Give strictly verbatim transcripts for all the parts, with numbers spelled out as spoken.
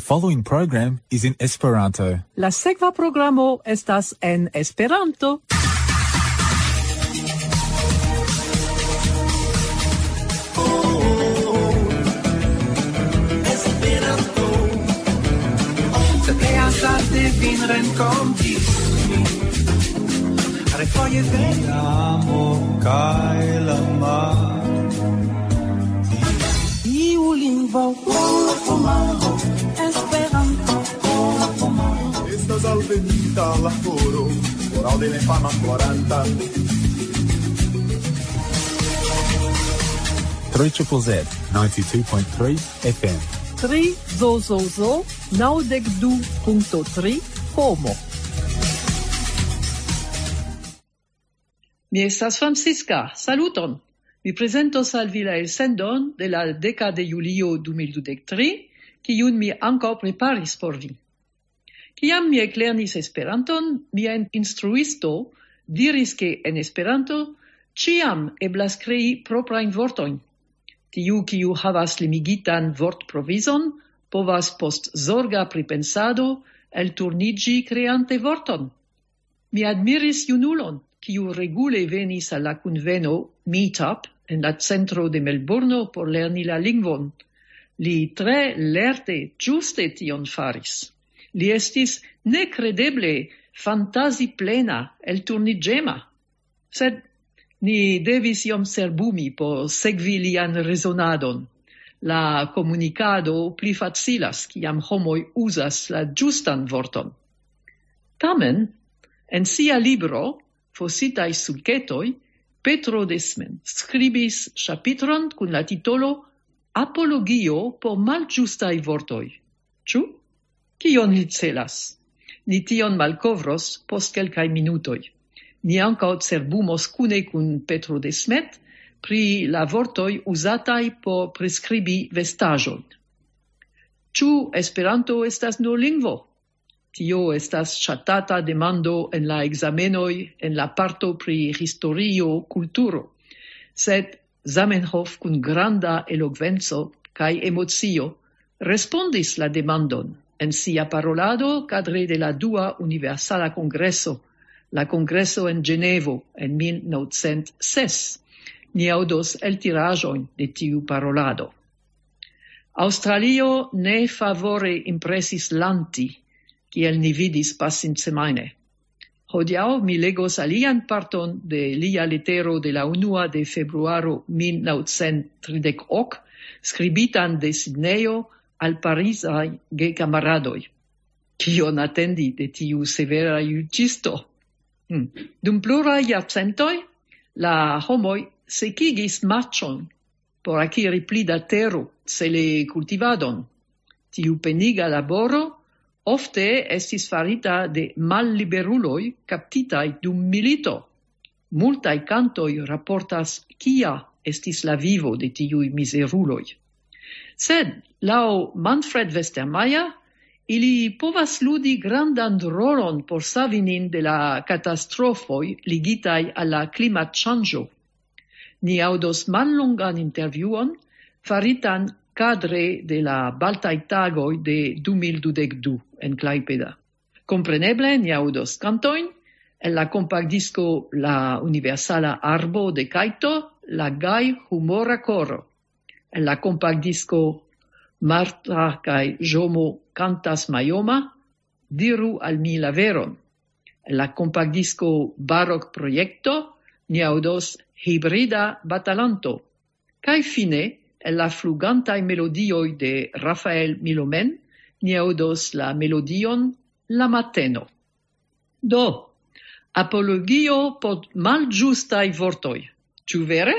Following program is in Esperanto. La sekva programo estas en Esperanto. Esperanto. Se pleasas de vin renkonti. Refoje de amo kaj la mar. Iu lingvo, Esperanto. Estas alvenita la horo, horo de la infana floranta. Three triple Z, ninety-two point three F M. Tri zo zo zo, naŭdek du punkto tri, homo. Mi estas Francisca, saluton! Mi prezentos al vi la elsendon de la deka de julio du mil dudek tri, kiun mi ankaŭ preparis por vi. Kiam mi eklernis Esperanton, mia in-, instruisto diris, ke en Esperanto ĉiam eblas krei proprajn vortojn. Tiu, kiu havas limigitan vortprovizon, povas post zorga pripensado elturniĝi kreante vorton. Mi admiris junulon, kiu regule venis al la kunveno Meetup en la centro de Melburno por lerni la lingvon. Li tre lerte, ĝuste tion faris. Li estis nekredeble fantazi plena, elturniĝema. Sed ni devis iom cerbumi por sekvi lian rezonadon. La komunikado pli facilas, kiam homoj uzas la ĝustan vorton. Tamen, en sia libro Fositaj sulketoj, Petro Desmet skribis ĉapitron kun la titolo Apologio por malĝustaj vortoj. Ĉu? Kion li celas? Ni tion malkovros post kelkaj minutoj. Ni ankaŭ cerbumos kune kun Petro Desmet pri la vortoj uzataj por priskribi vestaĵojn. Ĉu Esperanto estas nur lingvo? Tio estas ŝatata demando en la ekzamenoj en la parto pri historio, kulturo. Sed Zamenhof kun granda elokvenco kaj emocio respondis la demandon en sia parolado kadre de la dua universala kongreso, la kongreso en Ĝenevo en mil novcent ses. Ni aŭdos eltiraĵojn de tiu parolado. Aŭstralio ne favore impresis Lanti, kiel ni vidis pasinsemajne. Hodiaŭ mi legos alian parton de lia letero de la unua de februaro mil novcent tridek ok, skribitan de Sidnejo al parizaj gekamaradoj. Kion atendi de tiu severa juĝisto? Hm. Dum pluraj jarcentoj la homoj sekigis marĉon por akiri pli da tero, cele kultivadon. Tiu peniga laboro ofte estis farita de malliberuloj kaptitaj dum milito. Multaj kantoj raportas, kia estis la vivo de tiuj mizeruloj. Sed, laŭ Manfred Westermayer, ili povas ludi grandan rolon por savi nin de la katastrofoj ligitaj al la klimatŝanĝo. Ni aŭdos mallongan intervjuon faritan kadre de la Baltaj Tagoj de du mil dudek du en Klaipeda. Kompreneble ni aŭdos kantojn el la kompaktdisko La Universala Arbo de Kajto, La Gaj Humora Koro. El la kompaktdisko Marta kaj Ĵomo kantas Majoma, Diru al mi la veron. El la kompaktdisko Barok Projekto ni aŭdos Hibrida Batalanto. Kaj fine, el la flugantaj melodioj de Rafael Milomen, ni aŭdos la melodion La Mateno. Do, apologio por malĝustaj vortoj. Ĉu vere?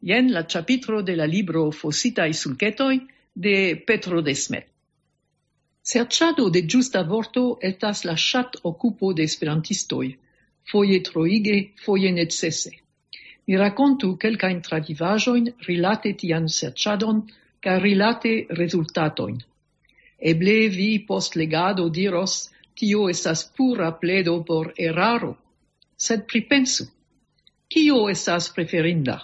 Jen la ĉapitro de la libro Fositaj sulketoj de Petro Desmet. Serĉado de ĝusta vorto estas la ŝatokupo de esperantistoj, foje troige, foje necese. Mi rakontu kelkajn travivaĵojn rilate tian serĉadon kaj rilate rezultatojn. Eble vi post legado diros, tio estas pura pledo por eraro. Sed pripensu, kio estas preferinda?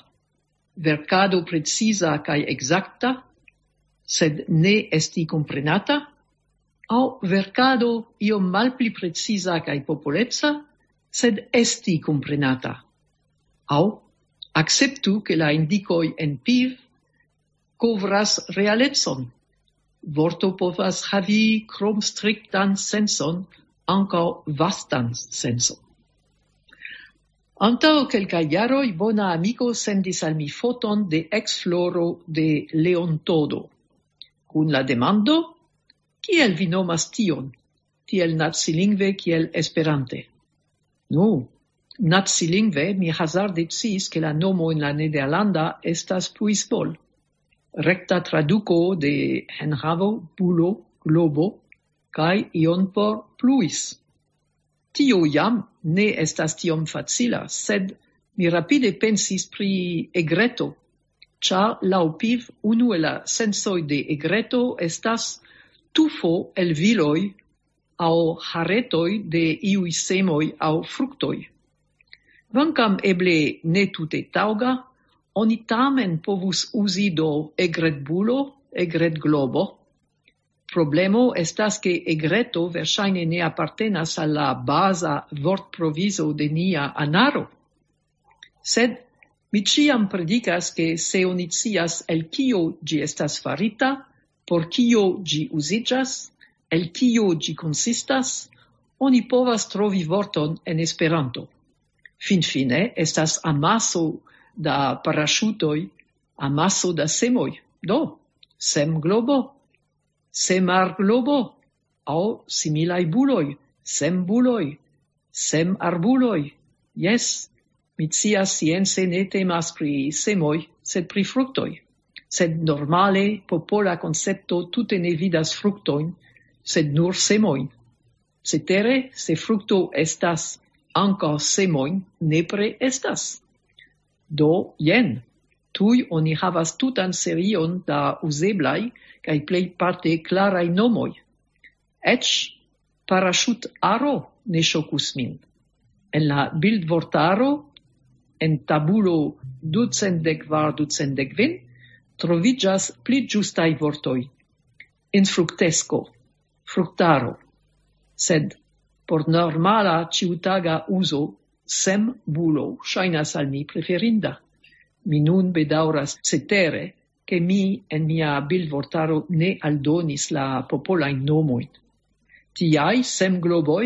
Verkado preciza kaj ekzakta, sed ne esti komprenata? aŭ verkado iom malpli preciza kaj popoleca, sed esti komprenata. Aŭ akceptu, ke la indikoj en piv kovras realecon. Vorto povas havi krom striktan senson, ankaŭ vastan senson. Antaŭ kelkaj jaroj bona amiko sendis al mi foton de eksfloro de Leontodo, kun la demando: "Kiel vi nomas tion, tiel nacilingve kiel Esperante?" Nu, nacilingve mi hazarde sciis, ke la nomo en la nederlanda estas pluisbol. Rekta traduko de enhavo, bulo, globo, kaj ion por pluis. Tio jam ne estas tiom facila, sed mi rapide pensis pri egreto, ĉar laŭ piv unu el la sensoj de egreto estas tufo el viloj aŭ haretoj de iuj semoj aŭ fruktoj. Kvankam eble ne tute taŭga, oni tamen povus uzi do egretbulo, egretglobo. Problemo estas, ke egreto verŝajne ne apartenas al la baza vortprovizo de nia anaro. Sed mi ĉiam predikas, ke se oni scias, el kio ĝi estas farita, por kio ĝi uziĝas, el kio ĝi konsistas, oni povas trovi vorton en Esperanto. Finfine estas amaso da paraŝutoj, amaso da semoj. Do, semglobo, semarglobo, aŭ similaj buloj, sembuloj, semarbuloj. Jes, mi scias, science ne temas pri semoj, sed pri fruktoj. Sed normale popola koncepto tute ne vidas fruktojn, sed nur semojn. Cetere, se frukto estas, ankaŭ semojn nepre estas. Do, jen, tuj oni havas tutan serion da uzeblaj kaj plejparte klaraj nomoj. Eĉ paraŝutaro ne ŝokus min. En la bildvortaro, en tabulo ducent dek kvar, ducent dek kvin, troviĝas pli ĝustaj vortoj: infruktesko, fruktaro. Sed por normala ĉiutaga uzo, sembulo ŝajnas al mi preferinda. Mi nun bedaŭras cetere, ke mi en mia bildvortaro ne aldonis la popolajn nomojn. Tiaj semgloboj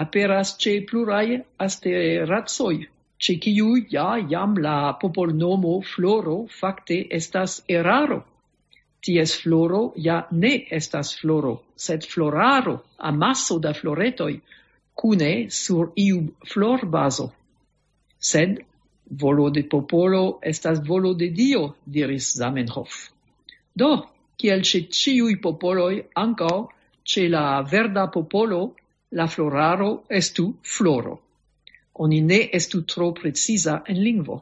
aperas ĉe pluraj asteracoj, ĉe kiuj ja jam la popolnomo floro fakte estas eraro. Ties floro ja ne estas floro, sed floraro, amaso da floretoj, kune sur iu florbazo. Sed volo de popolo estas volo de Dio, diris Zamenhof. Do, kiel ĉe ĉiuj popoloj, ankaŭ ĉe la verda popolo, la floraro estu floro. Oni ne estu tro preciza en lingvo.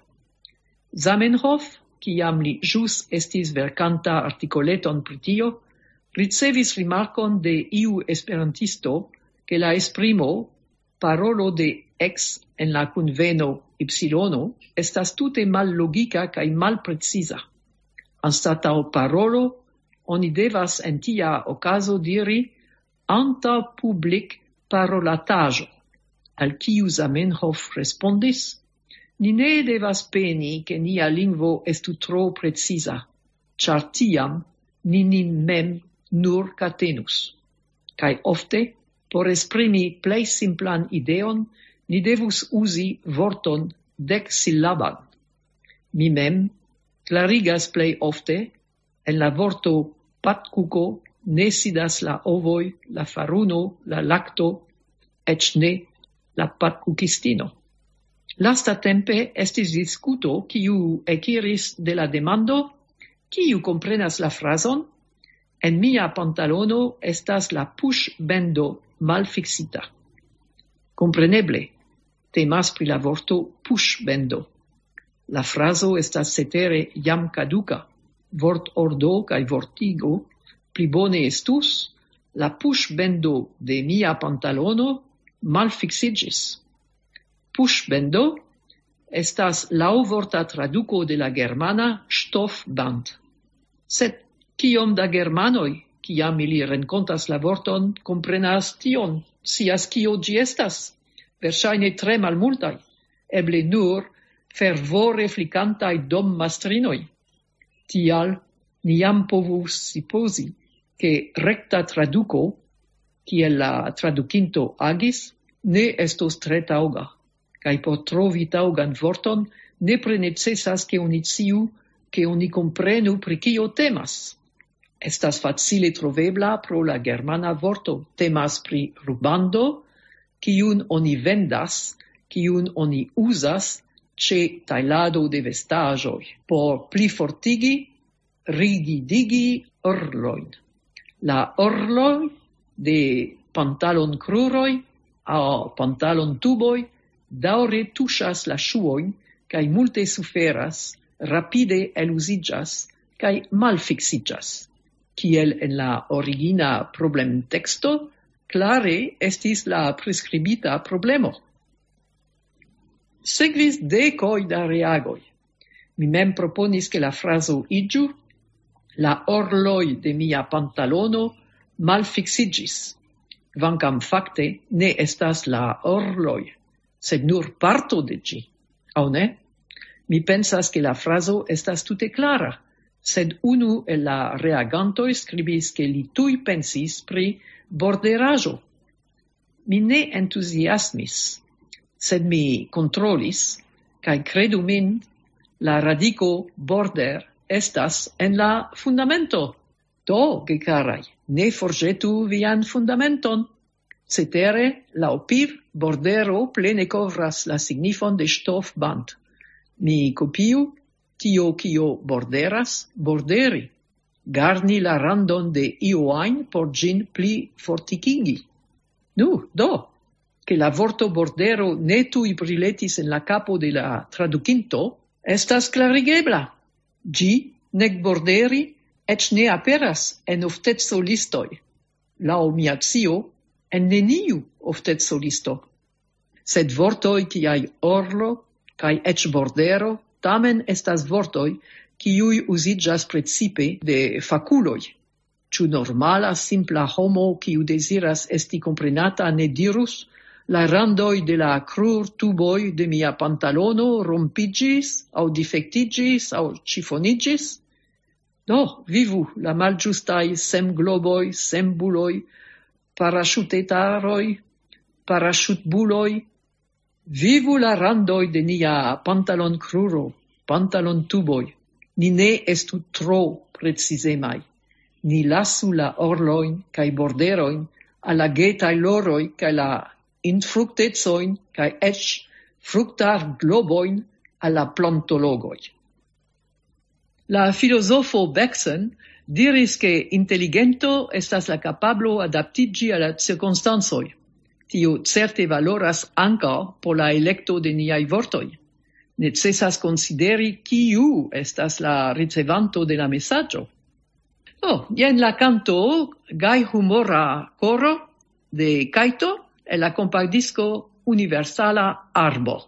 Zamenhof, kiam li ĵus estis verkanta artikoleton pri tio, ricevis rimarkon de iu esperantisto, ke la esprimo "parolo de X en la kunveno ipsilono" estas tute mallogika kaj malpreciza. Anstataŭ "parolo", oni devas en tia okazo diri "antaŭ publik parolataĵo", al kiu Zamenhof respondis: "Ni ne devas peni, ke nia lingvo estu tro preciza, ĉar tiam ni nin mem nur katenus." Kaj ofte, por esprimi plej simplan ideon, ni devus uzi vorton deksilaban. Mi mem klarigas plej ofte: en la vorto "patkuko" ne sidas la ovoj, la faruno, la lakto, eĉ ne la patkukistino. Lastatempe estis diskuto, kiu ekiris de la demando: "Kiu komprenas la frazon? En mia pantalono estas la puŝbendo malfiksita." Kompreneble, temas pri la vorto "puŝbendo". La frazo estas cetere jam kaduka. Vortordo kaj vortigo: "Pli bone estus: la puŝbendo de mia pantalono malfiksiĝis." Puŝbendo estas laŭvorta traduko de la germana "Stoffband". Sed kiom da germanoj kiam ili renkontas la vorton, komprenas tion, scias kio ĝi estas. Verŝajne tre malmultaj, eble nur fervore flikantaj dommastrinoj. Tial ni jam povus supozi, ke rekta traduko, kiel la tradukinto agis, ne estos tre taŭga. Kaj por trovi taŭgan vorton, nepre necesas, ke oni sciu, ke oni komprenu, pri kio temas. Estas facile trovebla pro la germana vorto. Temas pri rubando, kiun oni vendas, kiun oni uzas ĉe tajlado de vestaĵoj, por pli fortigi, rigidigi orlojn. La orloj de pantalonkruroj aŭ pantalontuboj daŭre tuŝas la ŝuojn kaj multe suferas, rapide eluziĝas kaj malfiksiĝas. Kiel en la origina problemteksto, klare estis la priskribita problemo. Sekvis dekoj da reagoj. Mi mem proponis, ke la frazo iĝu: "La orloj de mia pantalono malfiksiĝis", kvankam fakte ne estas la orloj, sed nur parto de ĝi, aŭ ne? Mi pensas, ke la frazo estas tute klara, sed unu el la reagantoj skribis, ke li tuj pensis pri borderaĵo. Mi ne entuziasmis, sed mi kontrolis, kaj kredu min, la radiko border estas en la fundamento. Do, gekaraj, ne forĵetu vian fundamenton. Cetere, laŭ Piv, bordero plene kovras la signifon de ŝtofband. Mi kopiu: "Tio, kio borderas, borderi." Garni la randon de io ajn por ĝin pli fortikigi. Nu, do, ke la vorto bordero ne tuj briletis en la kapo de la tradukinto, estas klarigebla. Ĝi, nek borderi, eĉ ne aperas en ofteco listoj. Laŭ mia scio, en neniu ofteco listo. Sed vortoj kiaj orlo kaj eĉ bordero tamen estas vortoj, kiuj uziĝas precipe de fakuloj. Ĉu normala, simpla homo, kiu deziras esti komprenata, ne dirus: "La randoj de la krurtuboj de mia pantalono rompiĝis aŭ difektiĝis aŭ ĉifoniĝis"? Do, vivu la malĝustaj semgloboj, sembuloj, paraŝutetaroj, paraŝutbuloj. Vivu la randoj de nia pantalonkruro, pantalontuboj. Ni ne estu tro precizemaj. Ni lasu la orlojn kaj borderojn al la getaj loroj kaj la infruktecojn kaj eĉ fruktarglobojn al la plantologoj. La filozofo Bergson diris, ke inteligento estas la kapablo adaptiĝi al la cirkonstancoj. Tio certe valoras ankaŭ por la elekto de niaj vortoj. Necesas konsideri, kiu estas la ricevanto de la mesaĝo. Do, jen la kanto "Gaj humora koro" de Kajto el la kompaktdisko "Universala Arbo".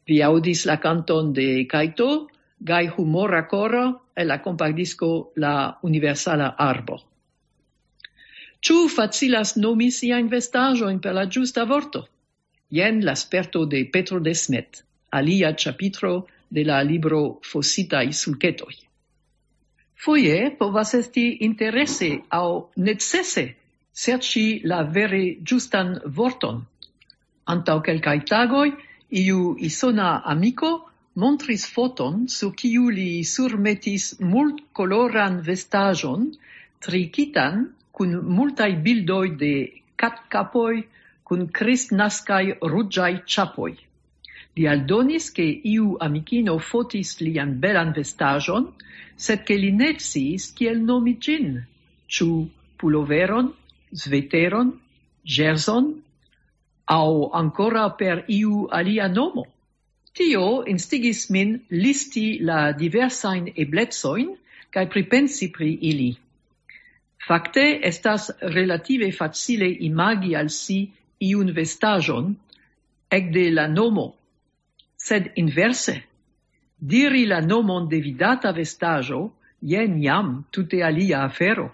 Vi aŭdis la kanton de Kajto, Gaj humora koro, el la kompaktdisko La Universala Arbo. Ĉu facilas nomi siajn vestaĵojn per la ĝusta vorto? Jen la sperto de Petro Desmet, alia ĉapitro de la libro Fositaj sulketoj. Foje povas esti interese aŭ necese serĉi la vere ĝustan vorton. Antaŭ kelkaj tagoj iu isona amiko montris foton, sur kiu li surmetis multkoloran vestaĵon, trikitan kun multaj bildoj de katkapoj kun kristnaskaj ruĝaj ĉapoj. Li aldonis, ke iu amikino fotis lian belan vestaĵon, sed ke li ne sciis, kiel nomi ĝin, ĉu puloveron, sveteron, ĵerzon, aŭ ankoraŭ per iu alia nomo. Tio instigis min listi la diversajn eblecojn kaj pripensi pri ili. Fakte estas relative facile imagi al si iun vestaĵon ekde la nomo, sed inverse, diri la nomon de vidata vestaĵo, jen jam tute alia afero.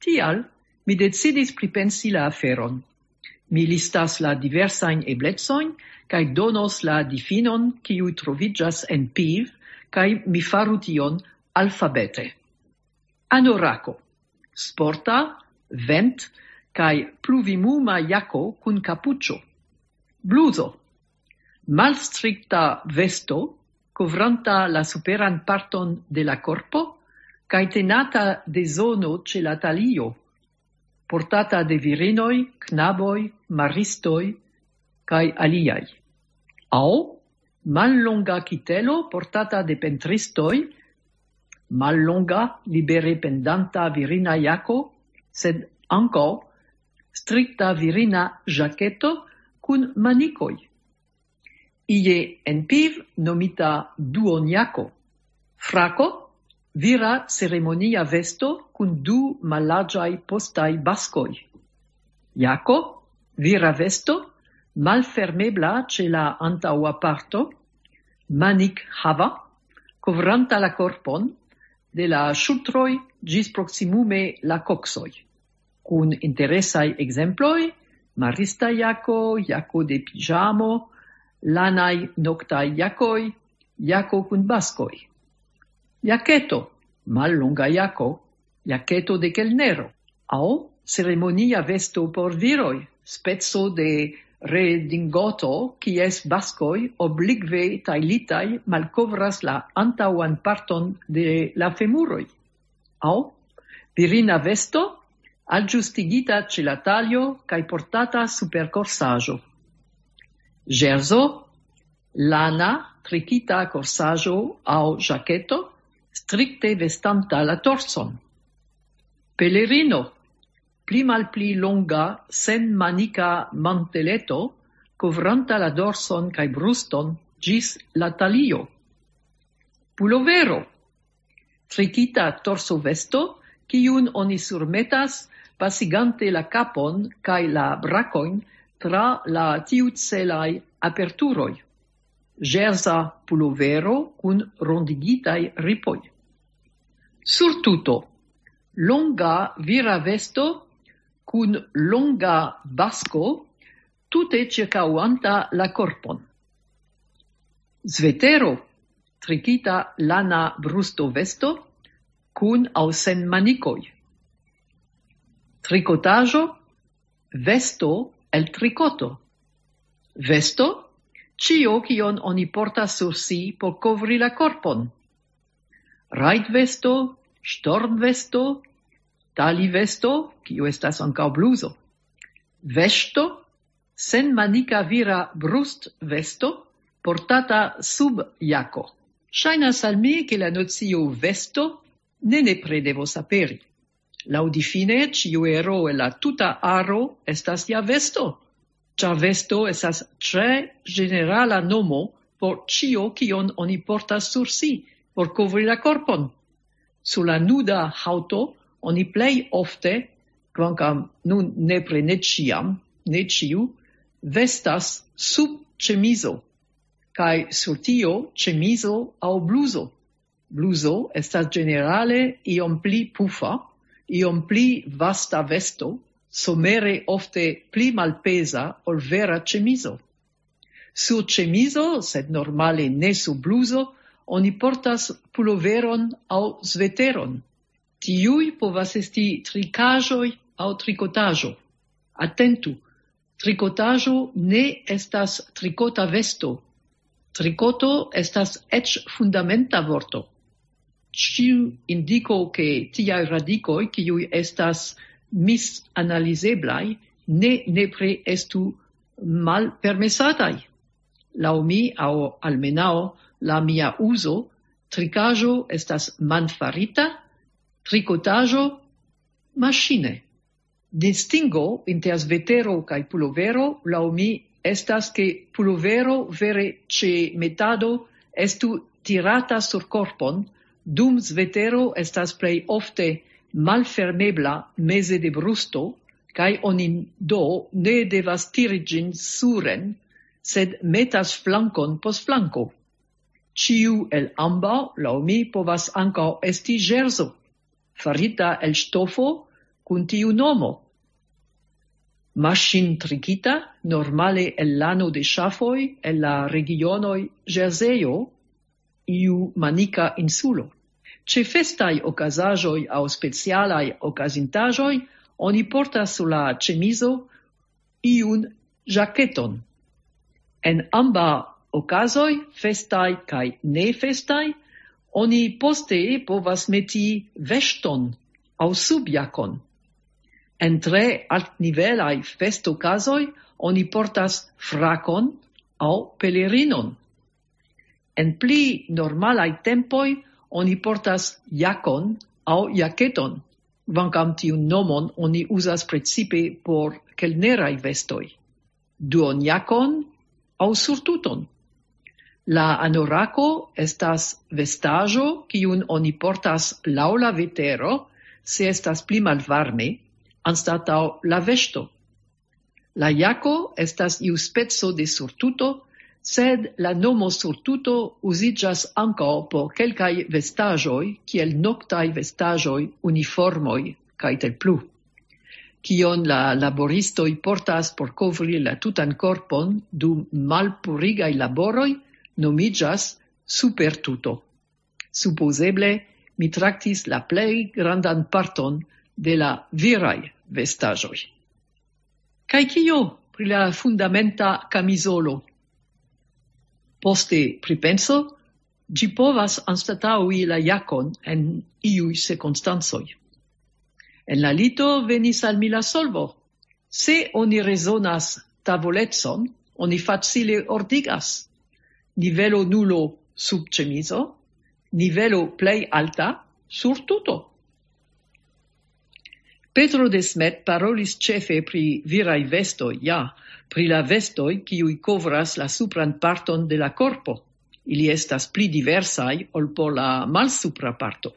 Tial mi decidis pripensi la aferon. Mi listas la diversajn eblecojn kaj donos la difinon, kiu troviĝas en piv, kaj mi faru tion alfabete. Anorako, sporta, vent- kaj pluvimuma jako kun kapuĉo. Bluzo, malstrikta vesto, kovranta la superan parton de la korpo, kaj tenata de zono ĉe la talio, portata de virinoj, knaboj, maristoj kaj aliaj. Aŭ mallonga kitelo portata de pentristoj, mallonga, libere pendanta virina jako, sed ankaŭ strikta virina ĵaketo kun manikoj. Ie en piv nomita duonjako. Frako, vira ceremonia vesto kun du mallarĝaj postaj baskoj. Jako, vira vesto, malfermebla ĉe la antaŭa parto, manik hava, kovranta la korpon de la ŝultroj ĝis proksimume la koksoj. Kun interesaj ekzemploj, marista jako, jako de piĝamo, lanaj noktaj jakoj, jako kun baskoj. Jaketo, mallonga jako, jaketo de kelnero, aŭ ceremonia vesto por viroj, speco de redingoto, kies baskoj oblikve tajlitaj malkovras la antaŭan parton de la femuroj. Aŭ virina vesto, aĝustigita ĉe la talio kaj portata super korsaĵo. Ĵerzo, lana trikita korsaĵo aŭ ĵaketo, strikte vestanta la torson. Pelerino, pli malpli longa, senmanika manteleto, kovranta la dorson kaj bruston ĝis la talio. Pulovero, trikita torsovesto, kiun oni surmetas pasigante la kapon kaj la brakojn tra la tiucelaj aperturoj. Ĵerza pulovero kun rondigitaj ripoj. Surtuto, longa vira vesto kun longa basko, tute ĉirkaŭanta la korpon. Svetero, trikita lana brustovesto, kun aŭ sen manikoj. Trikotaĵo, vesto el trikoto. Vesto, ĉio, kion oni portas sur si por kovri la korpon. Rajtvesto, ŝtormvesto, talivesto, kiu estas ankaŭ bluzo. Vesto, senmanika vira brustvesto, portata sub jako. Ŝajnas al mi, ke la nocio vesto ne nepre devos aperi. Laŭdifine, ĉiu ero el la tuta aro estas ja vesto, ĉar vesto estas tre ĝenerala nomo por ĉio, kion oni portas sur si, por kovri la korpon. Sur la nuda haŭto oni plej ofte, kvankam nun nepre ne ĉiam, ne ĉiu, vestas sub ĉemizo. Kaj sur tio ĉemizo aŭ bluzo. Bluzo estas ĝenerale iom pli pufa, iom pli vasta vesto, somere ofte pli malpeza ol vera ĉemizo. Sur ĉemizo, sed normale ne sur bluzo, oni portas puloveron aŭ sveteron. Tiuj povas esti trikaĵoj aŭ trikotaĵo. Atentu, trikotaĵo ne estas trikota vesto. Trikoto estas eĉ fundamenta vorto. Ĉiu indiko, ke tiaj radikoj, kiuj estas misanalizeblaj, ne nepre estu malpermesataj. Laŭ mi, aŭ almenaŭ la mia uzo, trikaĵo estas manfarita, trikotaĵo maŝine. Distingo inter svetero kaj pulovero, laŭ mi, estas, ke pulovero vere ĉe metado estu tirata sur korpon, dum svetero estas plej ofte malfermebla meze de brusto, kaj oni do ne devas tiri ĝin suren, sed metas flankon post flanko. Ĉiu el ambaŭ, laŭ mi, povas ankaŭ esti ĵerzo, farita el ŝtofo kun tiu nomo. Maŝintrikita, normale el lano de ŝafoj, el la regionoj Ĵerzejo, iu manika insulo. Ĉe festaj okazaĵoj aŭ specialaj okazintaĵoj oni portas sur la ĉemizo iun ĵaketon. En ambaŭ okazoj, festaj kaj nefestaj, oni poste povas meti veŝton aŭ subjakon. En tre altnivelaj festokazoj oni portas frakon aŭ pelerinon. En pli normalaj tempoj oni portas jakon aŭ jaketon, kvankam tiun nomon oni uzas precipe por kelneraj vestoj. Duonjakon aŭ surtuton. La anorako estas vestaĵo, kiun oni portas laŭ la vetero, se estas pli malvarme, anstataŭ la vesto. La jako estas iu speco de surtuto, sed la nomo surtuto uziĝas ankaŭ por kelkaj vestaĵoj, kiel noktaj vestaĵoj, uniformoj kaj tiel plu. Kion la laboristoj portas por kovri la tutan korpon dum malpurigaj laboroj, nomiĝas supertuto. Supozeble mi traktis la plej grandan parton de la viraj vestaĵoj. Kaj kio pri la fundamenta kamizolo? Poste pripenso, ĝi povas anstataŭi la jakon en iuj cirkonstancoj. En la lito venis al mi la solvo. Se oni rezonas tavolecon, oni facile ordigas. Nivelo nulo sub ĉemizo, nivelo plej alta sur tuto. Petro de Smet parolis ĉefe pri viraj vestoj, ja, pri la vestoj, kiuj kovras la supran parton de la korpo. Ili estas pli diversaj ol por la malsupra parto.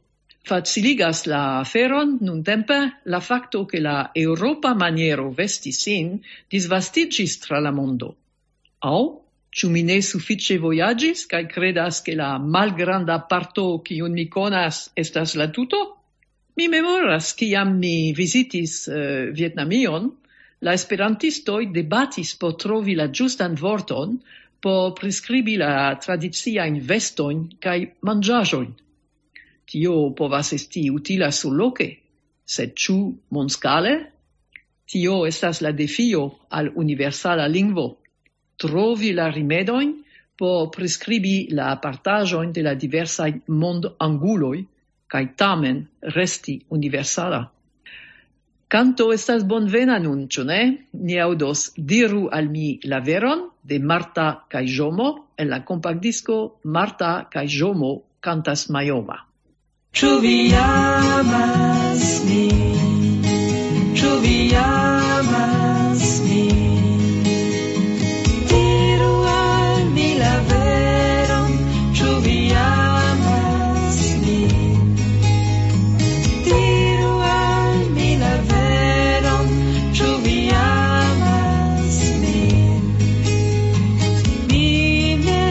Faciligas la aferon nuntempe la fakto, ke la eŭropa maniero vesti sin disvastiĝis tra la mondo. Aŭ ĉu mi ne sufiĉe vojaĝis kaj kredas, ke la malgranda parto, kiun mi konas, estas la tuto? Mi memoras, kiam mi vizitis eh, Vietnamion, la esperantistoj debatis por trovi la ĝustan vorton por priskribi la tradiciajn vestojn kaj manĝaĵojn. Tio povas esti utila surloke, sed ĉu mondskale? Tio estas la defio al universala lingvo. Trovi la rimedojn por priskribi la apartaĵojn de la diversaj mondanguloj, kaj tamen resti universala. Kanto estas bonvena nun, ĉu ne? Ni aŭdos Diru al mi la veron de Marta kaj Ĵomo en la kompaktdisko Marta kaj Ĵomo kantas Majoma. Ĉu vi amas min? Ĉu vi amas min? Diru al mi la veron, ĉu vi amas min? Diru al mi la veron, ĉu vi amas min? Mi ne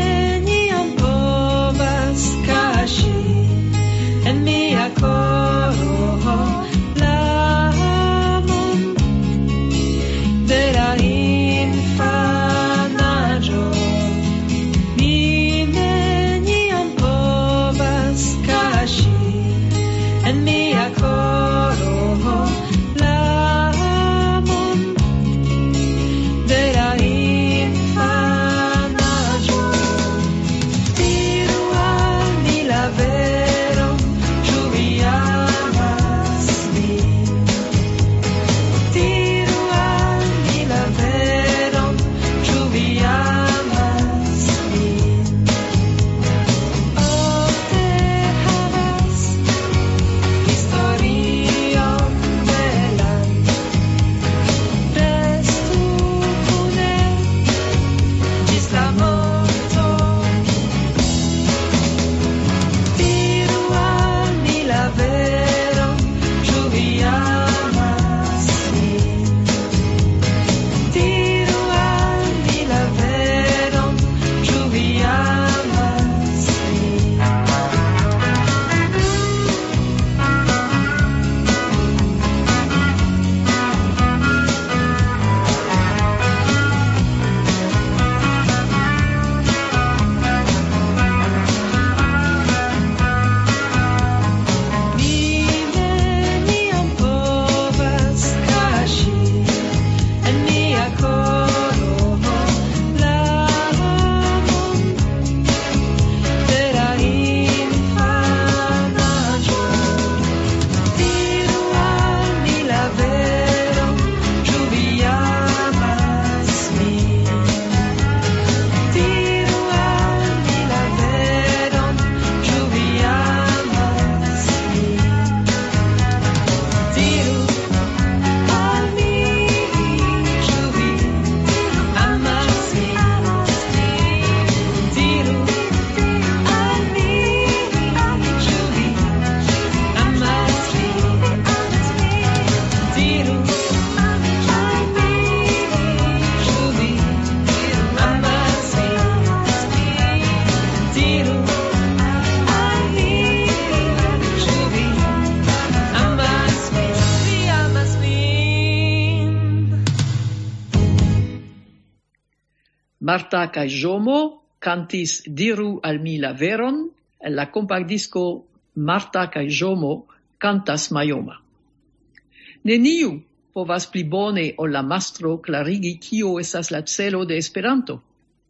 Marta kaj Ĵomo kantis Diru al mi la veron en la kompaktdisko Marta kaj Ĵomo kantas Majoma. Neniu povas pli bone ol la mastro klarigi, kio estas la celo de Esperanto.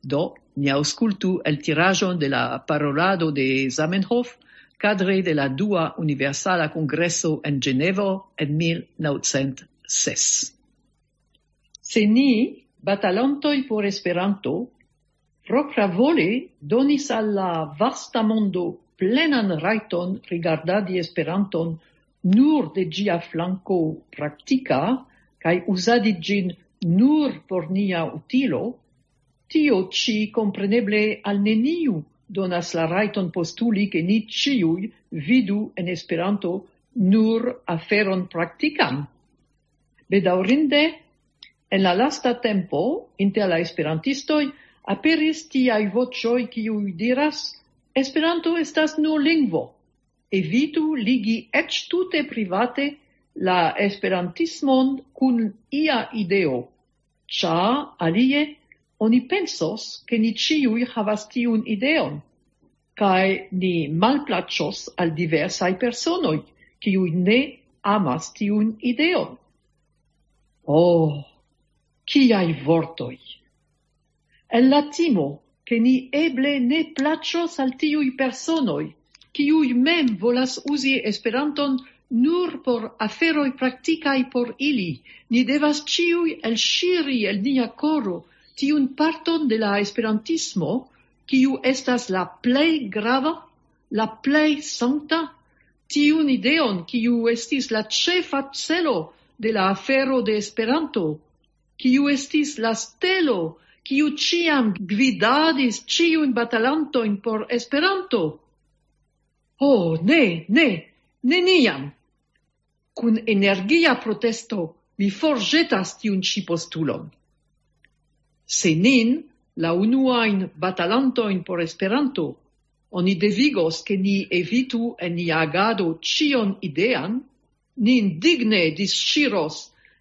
Do, ni aŭskultu eltiraĵon de la parolado de Zamenhof kadre de la dua Universala Kongreso en Ĝenevo en mil naŭcent ses. Se ni, batalantoj por Esperanto, propravole donis al la vasta mondo plenan rajton rigardadi Esperanton nur de ĝia flanko praktika kaj uzadi ĝin nur por nia utilo, tio ĉi kompreneble al neniu donas la rajton postuli, ke ni ĉiuj vidu en Esperanto nur aferon praktikan. Bedaŭrinde, en la lasta tempo inter la esperantistoj aperis tiaj voĉoj, kiuj diras: "Esperanto estas nur lingvo. Evitu ligi eĉ tute private la esperantismon kun ia ideo, ĉar alie oni pensos, ke ni ĉiuj havas tiun ideon, kaj ni malplaĉos al diversaj personoj, kiuj ne amas tiun ideon." Oh, kiaj vortoj! En la timo, ke ni eble ne plaĉos al tiuj personoj, kiuj mem volas uzi Esperanton nur por aferoj praktikaj por ili, ni devas ĉiuj elŝiri el nia koro tiun parton de la esperantismo, kiu estas la plej grava, la plej sankta, tiun ideon, kiu estis la ĉefa celo de la afero de Esperanto, kiu estis la stelo, kiu ĉiam gvidadis ĉiujn batalantojn por Esperanto. Ho, ne, ne, neniam! Kun energia protesto mi forĵetas tiun ĉi postulon. Se nin, la unuajn batalantojn por Esperanto, oni devigos, ke ni evitu en nia agado ĉion idean, ni indigne disŝiros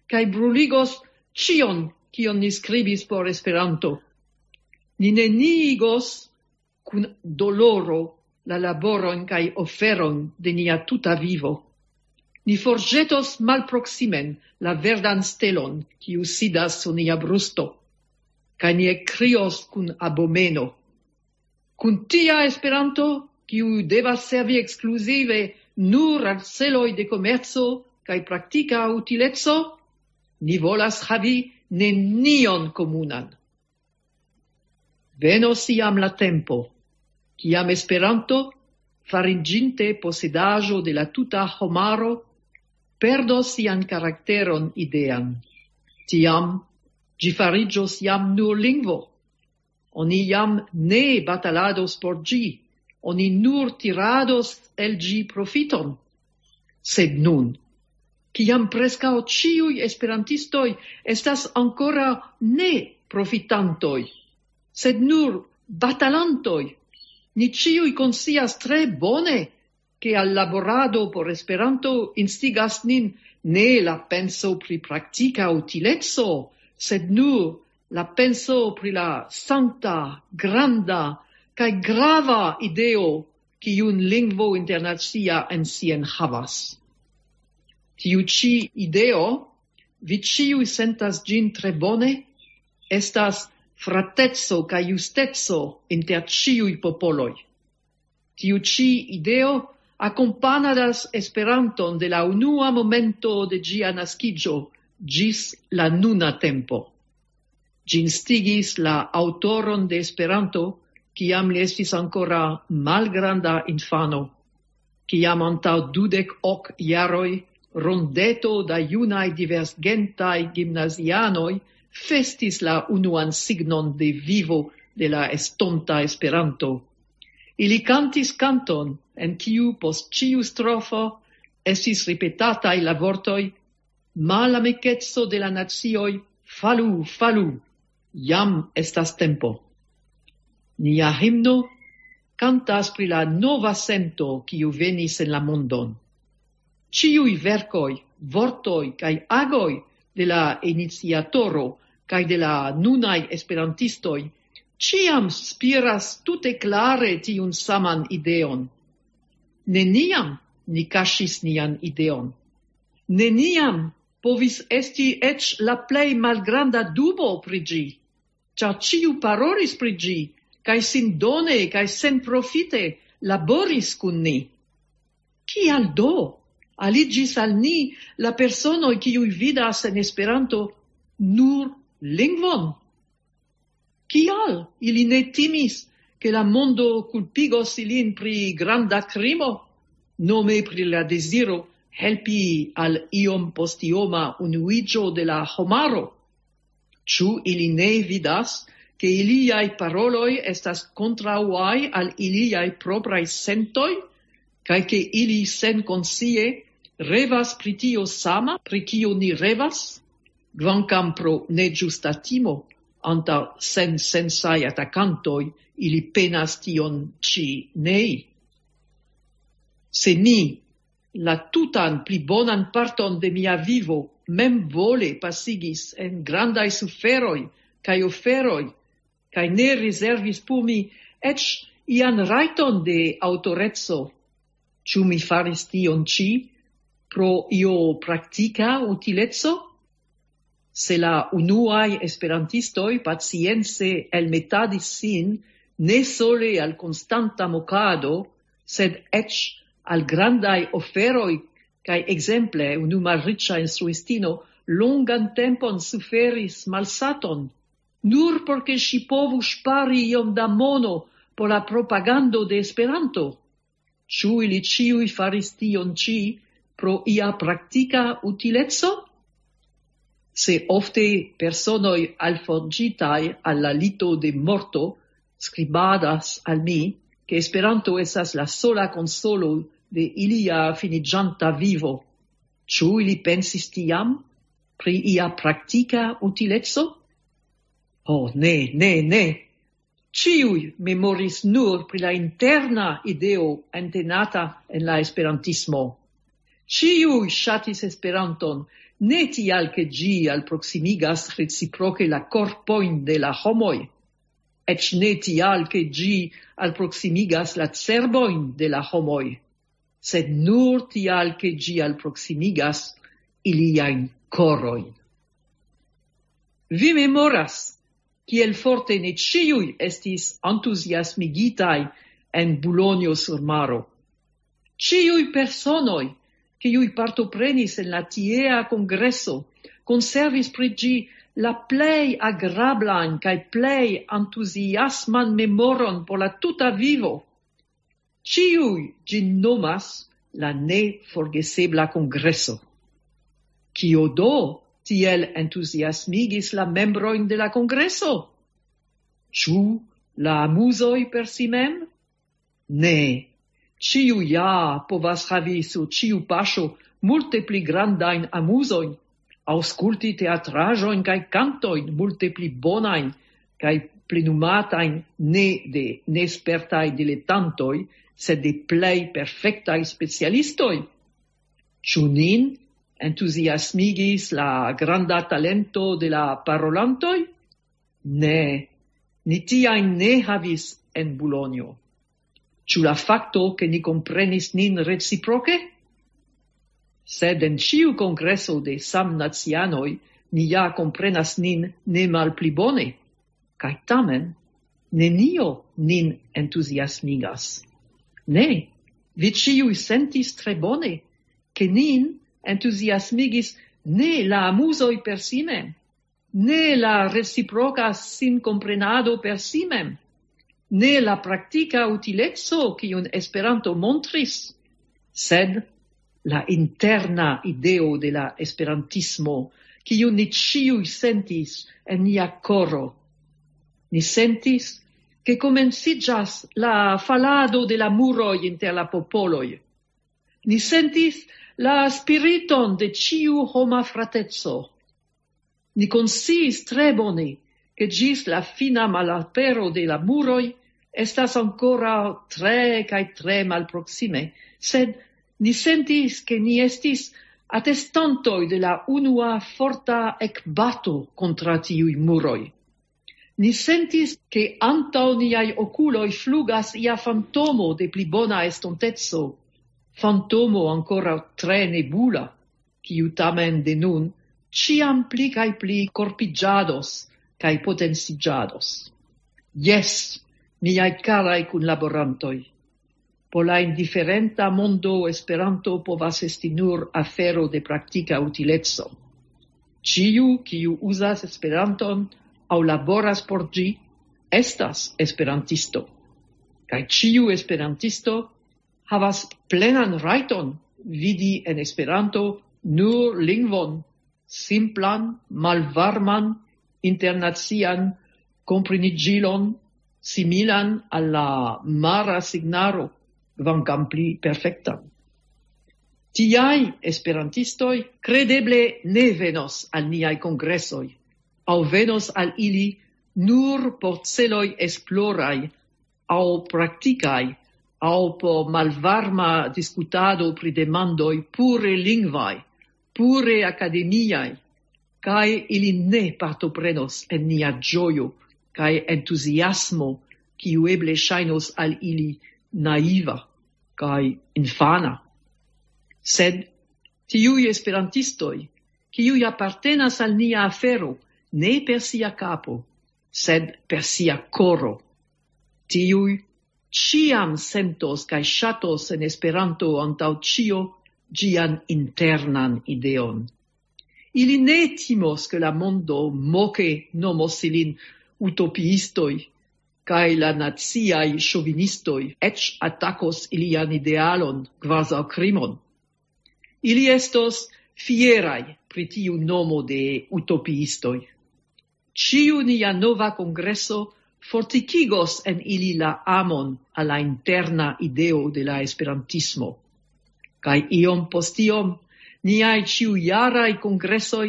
kaj bruligos ĉion, kion ni skribis por Esperanto. Ni neniigos kun doloro la laboron kaj oferon de nia tuta vivo. Ni forĵetos malproksimen la verdan stelon, kiu sidas sur nia brusto, kaj ni ekkrios kun abomeno: "Kun tia Esperanto, kiu devas servi ekskluzive nur al celoj de komerco kaj praktika utileco, ni volas havi nenion komunan." Venos iam la tempo, kiam Esperanto, fariĝinte posedaĵo de la tuta homaro, perdos sian karakteron idean. Tiam ĝi fariĝos jam nur lingvo. Oni jam ne batalados por ĝi, oni nur tirados el ĝi profiton. Sed nun, kiam preskaŭ ĉiuj esperantistoj estas ankoraŭ ne profitantoj, sed nur batalantoj, ni ĉiuj konscias tre bone, ke al laborado por Esperanto instigas nin ne la penso pri praktika utileco, sed nur la penso pri la sankta, granda kaj grava ideo, kiun lingvo internacia en si enhavas. Tiu ĉi ideo, vi ĉiuj sentas ĝin tre bone, estas frateco kaj justeco inter ĉiuj popoloj. Tiu ĉi ideo akompanadas Esperanton de la unua momento de ĝia naskiĝo ĝis la nuna tempo. Ĝi instigis la aŭtoron de Esperanto, kiam li estis ankoraŭ malgranda infano, kiam antaŭ dudek ok jaroj rondeto da junaj divergentaj gimnazianoj festis la unuan signon de vivo de la estonta Esperanto. Ili kantis kanton, en kiu post ĉiu strofo estis ripetataj la vortoj: "Malamikeco de la nacioj, falu, falu, jam estas tempo." Nia himno kantas pri la nova sento, kiu venis en la mondon. Ĉiuj verkoj, vortoj kaj agoj de la iniciatoro kaj de la nunaj esperantistoj Ĉiam spiras tute klare tiun saman ideon. Neniam ni kaŝis nian ideon. Neniam povis esti eĉ la plej malgranda dubo pri ĝi, ĉar ĉiu parolis pri ĝi, kaj sindone kaj senprofite laboris kun ni. Kial do aliĝis al ni la personoj, kiuj vidas en Esperanto nur lingvon? Kial ili ne timis, ke la mondo kulpigos ilin pri granda krimo, nome pri la deziro helpi al iom postioma unuiĝo de la homaro? Ĉu ili ne vidas, ke iliaj paroloj estas kontraŭaj al iliaj propraj sentoj, kaj ke ili senkonscie revas pri tio sama, pri kio ni revas, kvankam pro neĝusta timo antaŭ sensensaj atakantoj, ili penas tion ĉi nei? Se mi la tutan pli bonan parton de mia vivo memvole pasigis en grandaj suferoj kaj oferoj, kaj ne rezervis por mi eĉ ian rajton de aŭtoreco, ĉu mi faris tion ĉi pro io praktika utileco? Se la unuaj esperantistoj pacience elmetadis sin ne sole al konstanta mokado, sed eĉ al grandaj oferoj, kaj ekzemple unu malriĉa instruistino longan tempon suferis malsaton, nur por ke ŝi povu ŝpari iom da mono por la propagando de Esperanto. Ĉu ili ĉiuj faris tion ĉi pro ia praktika utileco? Se ofte personoj alforĝitaj al la lito de morto skribadas al mi, ke Esperanto estas la sola konsolo de ilia finiĝanta vivo, ĉu ili pensis tiam pri ia praktika utileco? Ho, ne, ne, ne! Ĉiuj memoris nur pri la interna ideo entenata en la esperantismo. Ĉiuj ŝatis Esperanton, ne tial ke ĝi alproksimigas reciproke la korpojn de la homoj, eĉ ne tial ke ĝi alproksimigas la cerbojn de la homoj, sed nur tial ke ĝi alproksimigas iliajn korojn. Vi memoras, kiel forte ne ĉiuj estis entuziasmigitaj en Bulonjo sur Maro. Ĉiuj personoj, kiuj partoprenis en la tiea kongreso, konservis pri ĝi la plej agrablajn kaj plej entuziasman memoron por la tuta vivo. Ĉiuj ĝin nomas la neforgesebla kongreso. Kio do tiel entuziasmigis la membrojn de la kongreso? Ĉu la amuzoj per si mem? Ne. Ĉiu ja povas havi sur ĉiu paŝo multe pli grandajn amuzojn, aŭskulti teatraĵojn kaj kantojn multe pli bonajn kaj plenumatajn ne de nespertaj diletantoj, sed de plej perfektaj specialistoj. Ĉu nin entuziasmigis la granda talento de la parolantoj? Ne, ni tiajn ne havis en Bulonjo. Ĉu la fakto, ke ni komprenis nin reciproke? Sed en ĉiu kongreso de samnacianoj ni ja komprenas nin ne malpli bone. Kaj tamen, nenio nin entuziasmigas. Ne, vi ĉiuj sentis tre bone, ke nin entuziasmigis ne la amuzoj per si mem, ne la reciproka sinkomprenado per si mem, ne la praktika utileco, kiun Esperanto montris, sed la interna ideo de la esperantismo, kiun ni ĉiuj sentis en nia koro. Ni sentis, ke komenciĝas la falado de la muroj inter la popoloj. Ni sentis la spiriton de ĉiu homa frateco. Ni konsciis tre bone, ke ĝis la fina malapero de la muroj estas ankoraŭ tre kaj tre malproksime, sed ni sentis, ke ni estis atestantoj de la unua forta ekbato kontraŭ tiuj muroj. Ni sentis, ke antaŭ niaj okuloj flugas ia fantomo de pli bona estonteco, fantomo ankoraŭ tre nebula, kiu tamen de nun ĉiam pli kaj pli korpiĝados kaj potenciĝados. Jes, miaj karaj kunlaborantoj, por la indiferenta mondo Esperanto povas esti nur afero de praktika utileco. Ĉiu, kiu uzas Esperanton aŭ laboras por ĝi, estas esperantisto. Kaj ĉiu esperantisto havas plenan rajton vidi en Esperanto nur lingvon, simplan, malvarman, internacian kompreniĝilon, similan al la mara signaro, kvankam pli perfektan. Tiaj esperantistoj kredeble ne venos al niaj kongresoj, aŭ venos al ili nur por celoj esploraj aŭ praktikaj, aŭ por malvarma diskutado pri demandoj pure lingvaj, pure akademiaj, kaj ili ne partoprenos en nia ĝojo kaj entuziasmo, kiu eble ŝajnos al ili naiva kaj infana. Sed tiuj esperantistoj, kiuj apartenas al nia afero, ne per sia kapo, sed per sia koro, tiuj ĉiam sentos kaj ŝatos en Esperanto antaŭ ĉio ĝian internan ideon. Ili ne timos, ke la mondo moke nomos ilin utopiistoj, kaj la naciaj ŝovinistoj eĉ atakos ilian idealon kvazaŭ krimon. Ili estos fieraj pri tiu nomo de utopiistoj. Ĉiu nia nova kongreso fortikigos en ili la amon al la interna ideo de la esperantismo. Kaj iom post iom, niaj ĉiujaraj kongresoj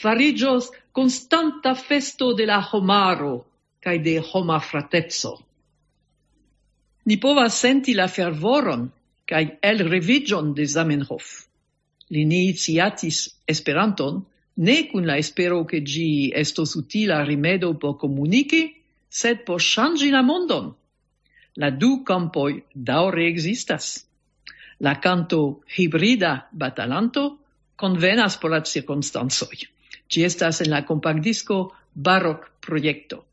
fariĝos konstanta festo de la homaro kaj de homa frateco. Ni povas senti la fervoron kaj elreviĝon de Zamenhof. Li iniciatis Esperanton ne kun la espero, ke ĝi estos utila rimedo por komuniki, sed por ŝanĝi la mondon. La du kampoj daŭre ekzistas. La kanto hibrida batalanto konvenas por la cirkonstancoj. Ĝi estas en la kompaktdisko Barok Projekto.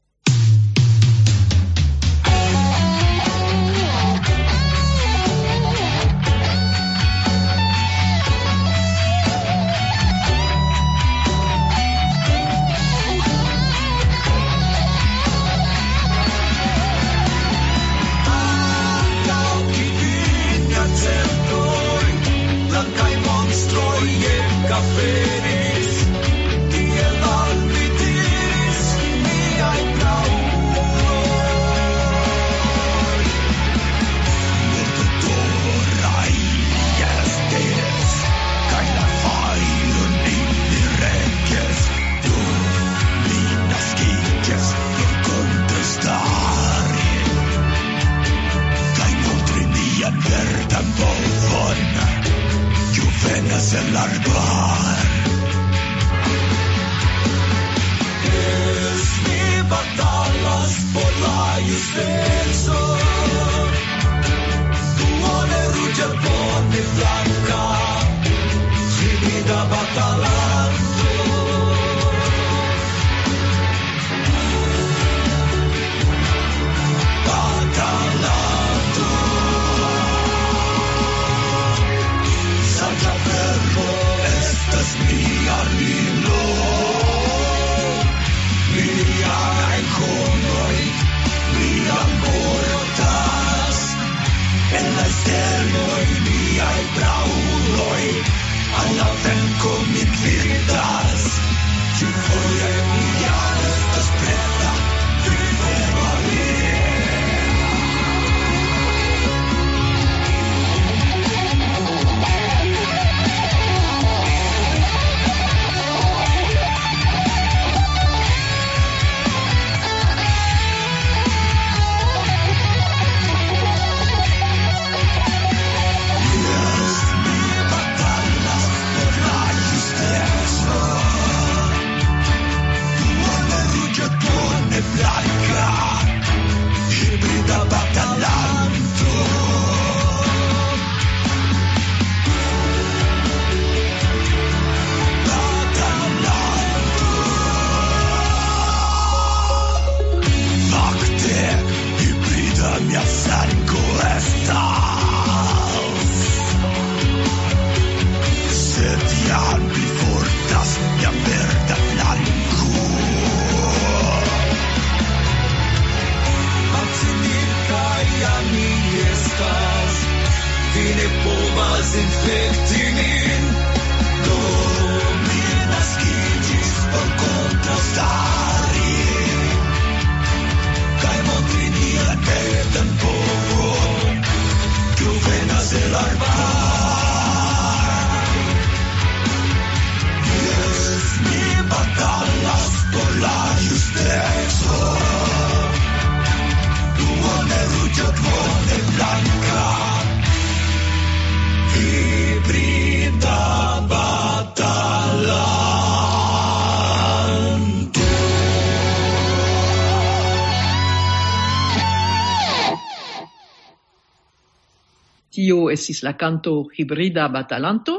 Tio estis la kanto Hibrida Batalanto.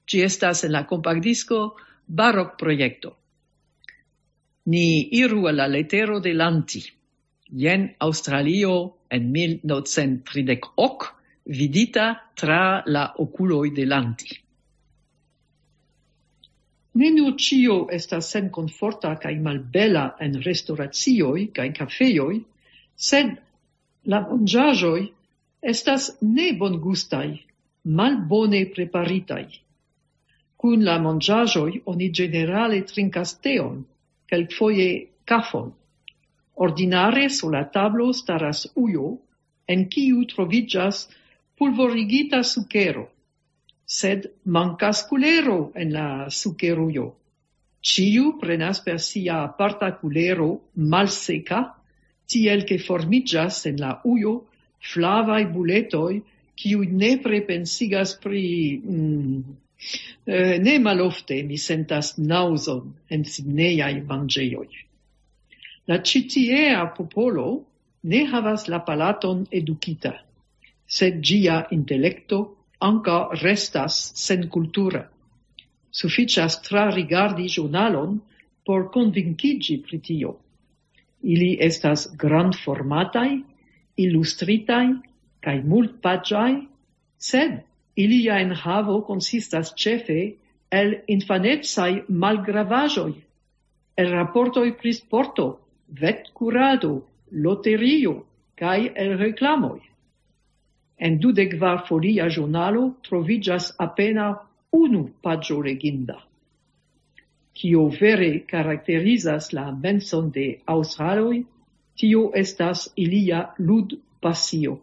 Ĝi estas en la kompaktdisko Barok Projekto. Ni iru al la letero de Lanti. Jen Aŭstralio en mil novcent tridek ok, vidita tra la okuloj de Lanti. Ne nur ĉio estas senkomforta kaj malbela en restoracioj kaj kafejoj, sed la manĝaĵoj estas nebongustaj, malbone preparitaj. Kun la manĝaĵoj oni ĝenerale trinkas teon, kelkfoje kafon. Ordinare sur la tablo staras ujo, en kiu troviĝas pulvorigita sukero. Sed mankas kulero en la sukerujo. Ĉiu prenas per sia aparta kulero malseka, tiel ke formiĝas en la ujo flavaj buletoj, kiuj nepre pensigas pri... Mm, eh, ne malofte mi sentas naŭzon en Sidneaj manĝejoj. La ĉi tiea popolo ne havas la palaton edukita, sed ĝia intelekto ankaŭ restas senkultura. Sufiĉas trarigardi ĵurnalon por konvinkiĝi pri tio. Ili estas grandformataj, ilustritaj kaj multpaĝaj, sed ilia enhavo konsistas ĉefe el infanecaj malgravaĵoj, el raportoj pri sporto, vetkurado, loterio kaj el reklamoj. En dudek kvar folia ĵurnalo troviĝas apenaŭ unu paĝo leginda. Kio vere karakterizas la menson de aŭstraloj, tio estas ilia ludpasio.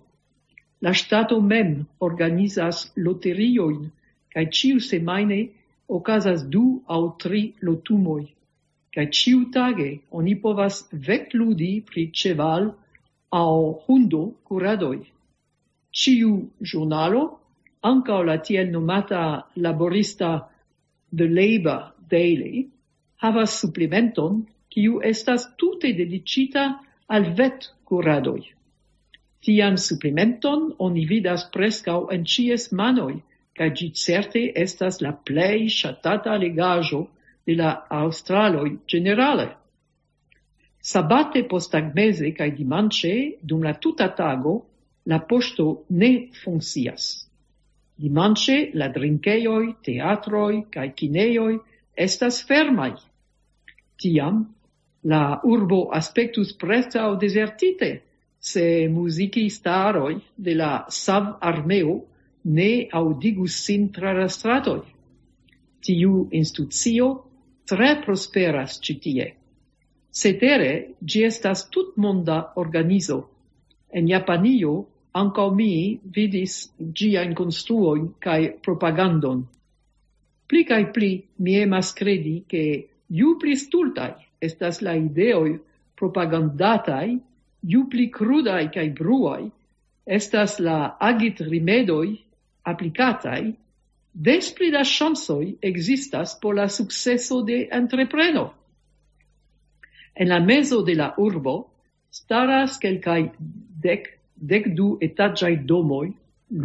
La ŝtato mem organizas loteriojn, kaj ĉiusemajne okazas du aŭ tri lotumoj. Kaj ĉiutage oni povas vetludi pri ĉeval- aŭ hundo-kuradoj. Ĉiu ĵurnalo, ankaŭ la tiel nomata laborista The Labour Daily, havas suplementon, kiu estas tute dediĉita al vetkuradoj. Tian suplementon oni vidas preskaŭ en ĉies manoj, kaj ĝi certe estas la plej ŝatata legaĵo de la aŭstraloj ĝenerale. Sabate posttagmeze kaj dimanĉe dum la tuta tago la poŝto ne funkcias. Dimanĉe la drinkejoj, teatroj kaj kinejoj estas fermaj. Tiam la urbo aspektus preskaŭ dezertite, se muzigistaroj de la Sav-armeo ne aŭdigus sin tra la stratoj. Tiu institucio tre prosperas ĉi tie. Cetere, ĝi estas tutmonda organizo. En Japanio ankaŭ mi vidis ĝiajn konstruojn kaj propagandon. Pli kaj pli mi emas kredi, ke ju pli stultaj estas la ideoj propagandataj, ju pli krudaj kaj bruaj estas la agitrimedoj aplikataj, des pli da ŝancoj ekzistas por la sukceso de entrepreno. En la mezo de la urbo staras kelkaj dek, dek du etaĝaj domoj,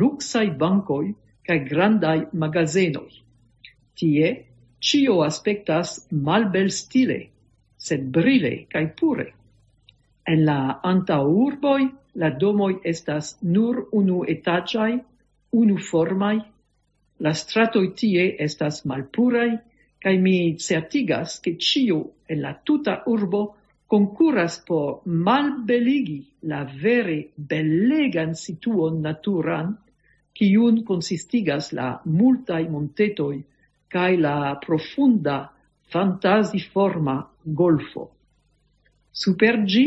luksaj bankoj kaj grandaj magazenoj. Tie ĉio aspektas malbelstile, sed brile kaj pure. En la antaŭurboj la domoj estas nur unuetaĝaj, unuformaj. La stratoj tie estas malpuraj, kaj mi certigas, ke ĉio en la tuta urbo konkuras por malbeligi la vere belegan situon naturan, kiun konsistigas la multaj montetoj kaj la profunda fantaziforma golfo. Super ĝi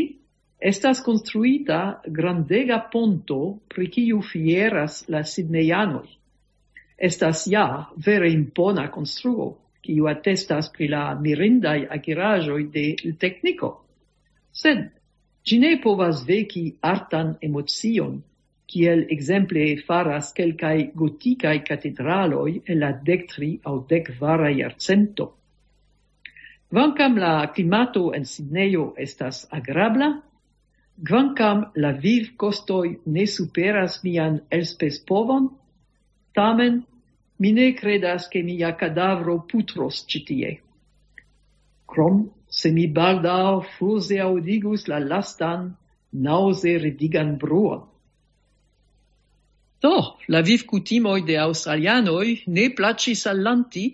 estas konstruita grandega ponto, pri kiu fieras la sidnejanoj. Estas ja vere impona konstruo, kiu atestas pri la mirindaj akiraĵoj de tekniko. Sed ĝi ne povas veki artan emocion, kiel ekzemple faras kelkaj gotikaj katedraloj en la dektria aŭ dekkvara jarcento. Kvankam la klimato en Sidnejo estas agrabla, Kvankam la vivkostoj ne superas mian elspezpovon, tamen mi ne kredas, ke mia kadavro putros ĉi tie. Krom se mi baldaŭ fuze aŭdigus la lastan naŭze ridigan bruon. Do, la vivkutimoj de aŭstralianoj ne plaĉis al Lanti,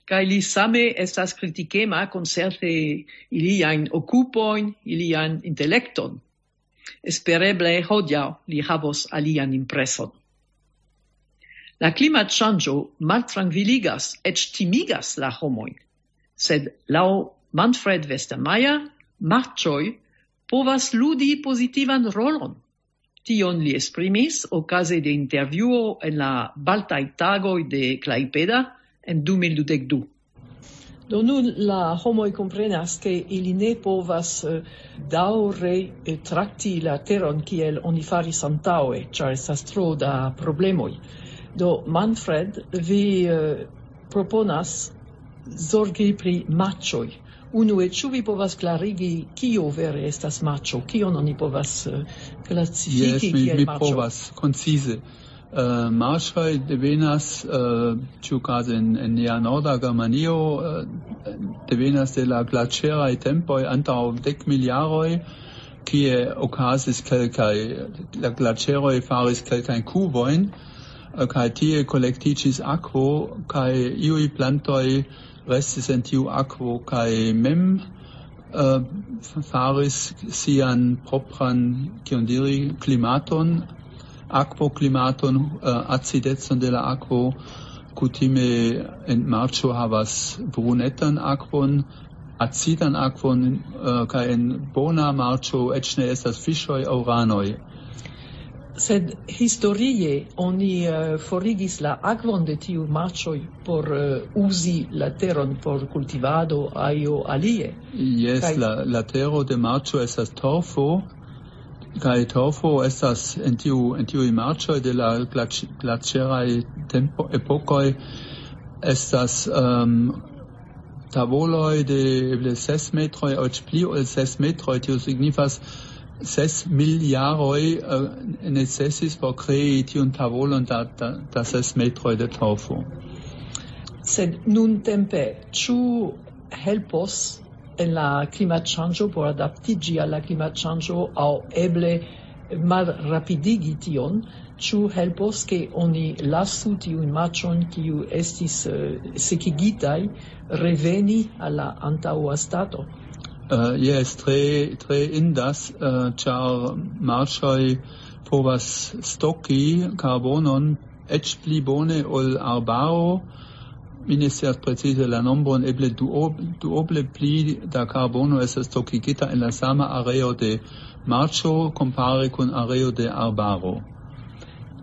kaj li same estas kritikema koncerte iliajn okupojn, ilian intelekton. Espereble hodiaŭ li havos alian impreson. La klimatŝanĝo maltrankviligas, eĉ timigas la homojn, sed laŭ Manfred Westermeier, marĉoj povas ludi pozitivan rolon. Tion li esprimis okaze de intervjuo en la Baltaj Tagoj de Klaipeda en du mil dudek du. Do nun la homoj komprenas, ke ili ne povas eh, daŭre eh, trakti la teron kiel oni faris antaŭe, ĉar estas tro da problemoj. Do Manfred, vi eh, proponas zorgi pri maĉoj. Unue, ĉu vi povas klarigi, kio vere estas maĉo? Kion oni povas eh, klasifiki Jes, mi, kiel mi maĉo? Povas koncize. Uh, marŝoj devenas, uh, ĉiukaze en, en nia norda Germanio, uh, devenas de la glaĉeraj tempoj antaŭ dek mil jaroj, kie okazis kelkaj, la glaĉeroj faris kelkajn kuvojn, uh, kaj tie kolektiĝis akvo, kaj iuj plantoj restis en tiu akvo, kaj mem uh, faris sian propran, kion diri, klimaton, akvoklimaton, uh, acidecon de la akvo. Kutime en marĉo havas brunetan akvon, acidan akvon, uh, kaj en bona marĉo eĉ ne estas fiŝoj aŭ ranoj. Sed historie oni eh, forigis la akvon de tiu marĉoj por eh, uzi la teron por kultivado aŭ alie. Jes, Kaj la, la tero de marĉo estas torfo, kaj torfo estas en tiu, en tiuj marĉoj de la glaĉ-, glaĉeraj tempo, epokoj estas um, tavoloj de eble ses metroj, eĉ pli ol ses metroj. Tio signifas, ses mil jaroj uh, necesis por krei tiun tavolon da, da, da ses metroj de torfo. Sed nuntempe, ĉu helpos en la klimatŝanĝo por adaptiĝi al la klimatŝanĝo aŭ eble malrapidigi tion, ĉu helpos, ke oni lasu tiujn marĉojn, kiu estis eh, sekigitaj, reveni al la antaŭa stato? Uh, jes, tre, tre indas, uh, ĉar marĉoj povas stoki karbonon eĉ pli bone ol arbaro. Mi ne scias precize la nombron, eble duob-, duoble pli da karbono estas stokigita en la sama areo de marĉo kompare kun areo de arbaro.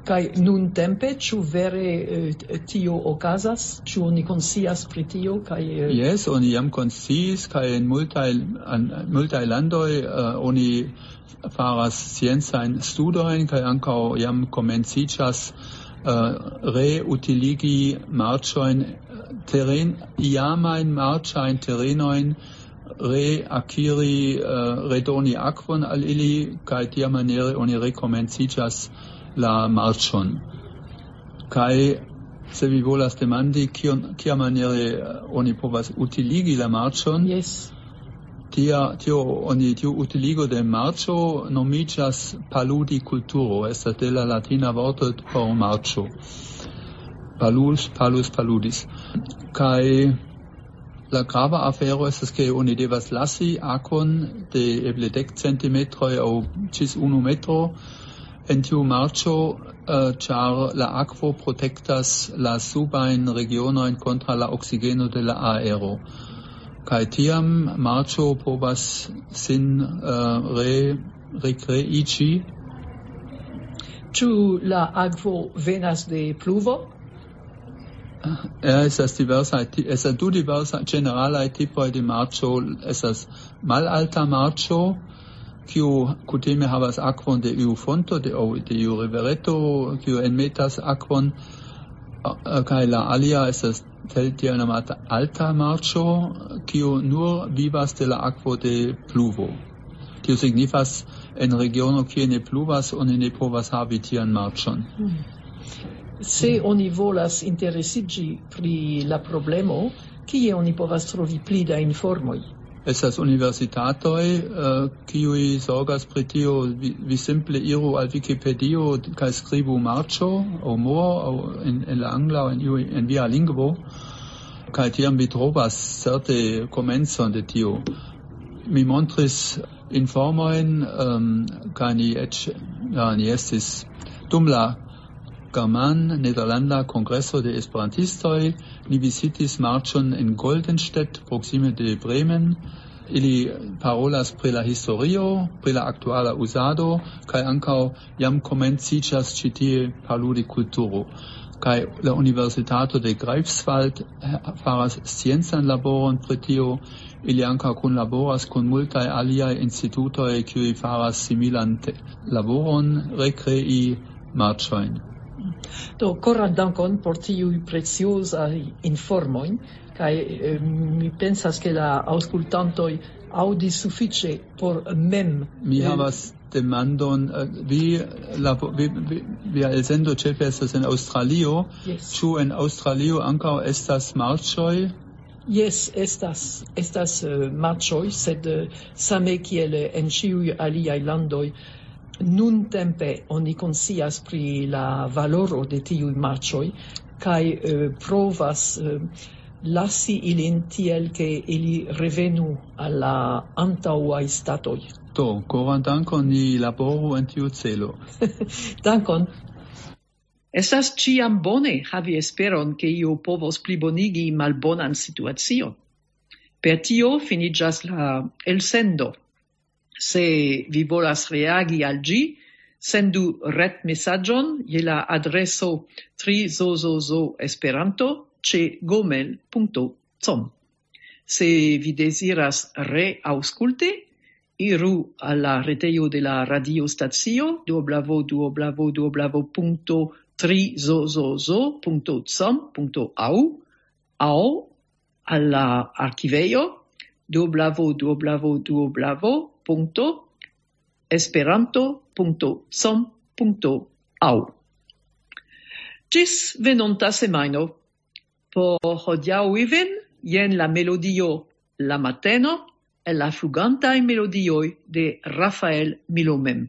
Kaj nuntempe, ĉu vere eh, tio okazas? Ĉu oni konscias pri tio? Kaj eh, Jes, oni jam konsciis, kaj en multaj, an, multaj landoj uh, oni faras sciencajn studojn, kaj ankaŭ jam komenciĝas uh, reutiligi marĉojn, teren, iamajn marĉajn terenojn, reakiri, uh, redoni akvon al ili, kaj tiamaniere oni rekomenciĝas la marĉon. Kaj se vi volas demandi, kion, kiamaniere uh, oni povas utiligi la marĉon, Jes. Tia, tio, oni, tiu utiligo de marĉo nomiĝas paludi kulturo, estas de la latina vorto por marĉo. Palus, palus, paludis. Kaj la grava afero estas, ke oni devas lasi akvon de eble dek centimetroj aŭ ĝis unu metro en tiu marĉo, eh, ĉar la akvo protektas la subajn regionojn kontraŭ la oksigeno de la aero. Kaj tiam marĉo povas sin eh, re, rekreiĝi. Ĉu la akvo venas de pluvo? Eh, Estas diversaj, ti- estas du diversaj ĝeneralaj tipoj de marĉo. Estas malalta marĉo, kiu kutime havas akvon de iu fonto, de, aŭ de iu rivereto, kiu enmetas akvon, eh, kaj la alia estas tel-, tiel nomata alta marĉo, kiu nur vivas de la akvo de pluvo. Tio signifas, en regiono, kie ne pluvas, oni ne povas havi tian marĉon. Se oni volas interesiĝi pri la problemo, kie oni povas trovi pli da informoj? Estas universitatoj, eh, kiuj zorgas pri tio. Vi, vi simple iru al Wikipedio kaj skribu marĉo aŭ mor aŭ en, en la angla aŭ en, iu- en via lingvo, kaj tiam vi trovas certe komencon de tio. Mi montris informojn, ehm, kaj ni eĉ, ja, ni estis dum la German-Nederlanda Kongreso de Esperantistoj, ni vizitis marĉon en Goldenstedt, proksime de Bremen. Ili parolas pri la historio, pri la aktuala uzado, kaj ankaŭ jam komenciĝas ĉi tie paludi kulturo. Kaj la Universitato de Greifswald, eh, faras sciencan laboron pri tio. Ili ankaŭ kunlaboras kun multaj aliaj institutoj, kiuj faras similan te- laboron, rekrei marĉojn. Do, koran dankon por tiuj preciozaj informoj, kaj eh, mi pensas, ke la aŭskultantoj aŭdis sufiĉe por mem. Mi eh, havas demandon, eh, vi, labo, vi, vi, via elsendo ĉefe estas en Aŭstralio. Yes. Ĉu en Aŭstralio ankaŭ estas marĉoj? Jes, estas, estas eh, marĉoj, sed eh, same kiel eh, en ĉiuj aliaj landoj, nuntempe oni konscias pri la valoro de tiuj marĉoj, kaj eh, provas eh, lasi ilin tiel, ke ili revenu al la antaŭaj statoj. Do, koran dankon, ni laboru en tiu celo. Dankon. Estas ĉiam bone havi esperon, ke io povos plibonigi malbonan situacion. Per tio finiĝas la elsendo. Se vi volas reagi al ĝi, sendu retmesaĝon je la adreso trizozozoesperanto ĉe gomel.com. Se vi deziras reaŭskulti, iru al la retejo de la radiostacio www.trizozozo.com.au aŭ al la arkivejo www.esperanto.com.au. Ĝis venonta semajno. Por hodiaŭ Iven, jen la melodio La Mateno, el la flugantaj melodioj de Rafael Milomem.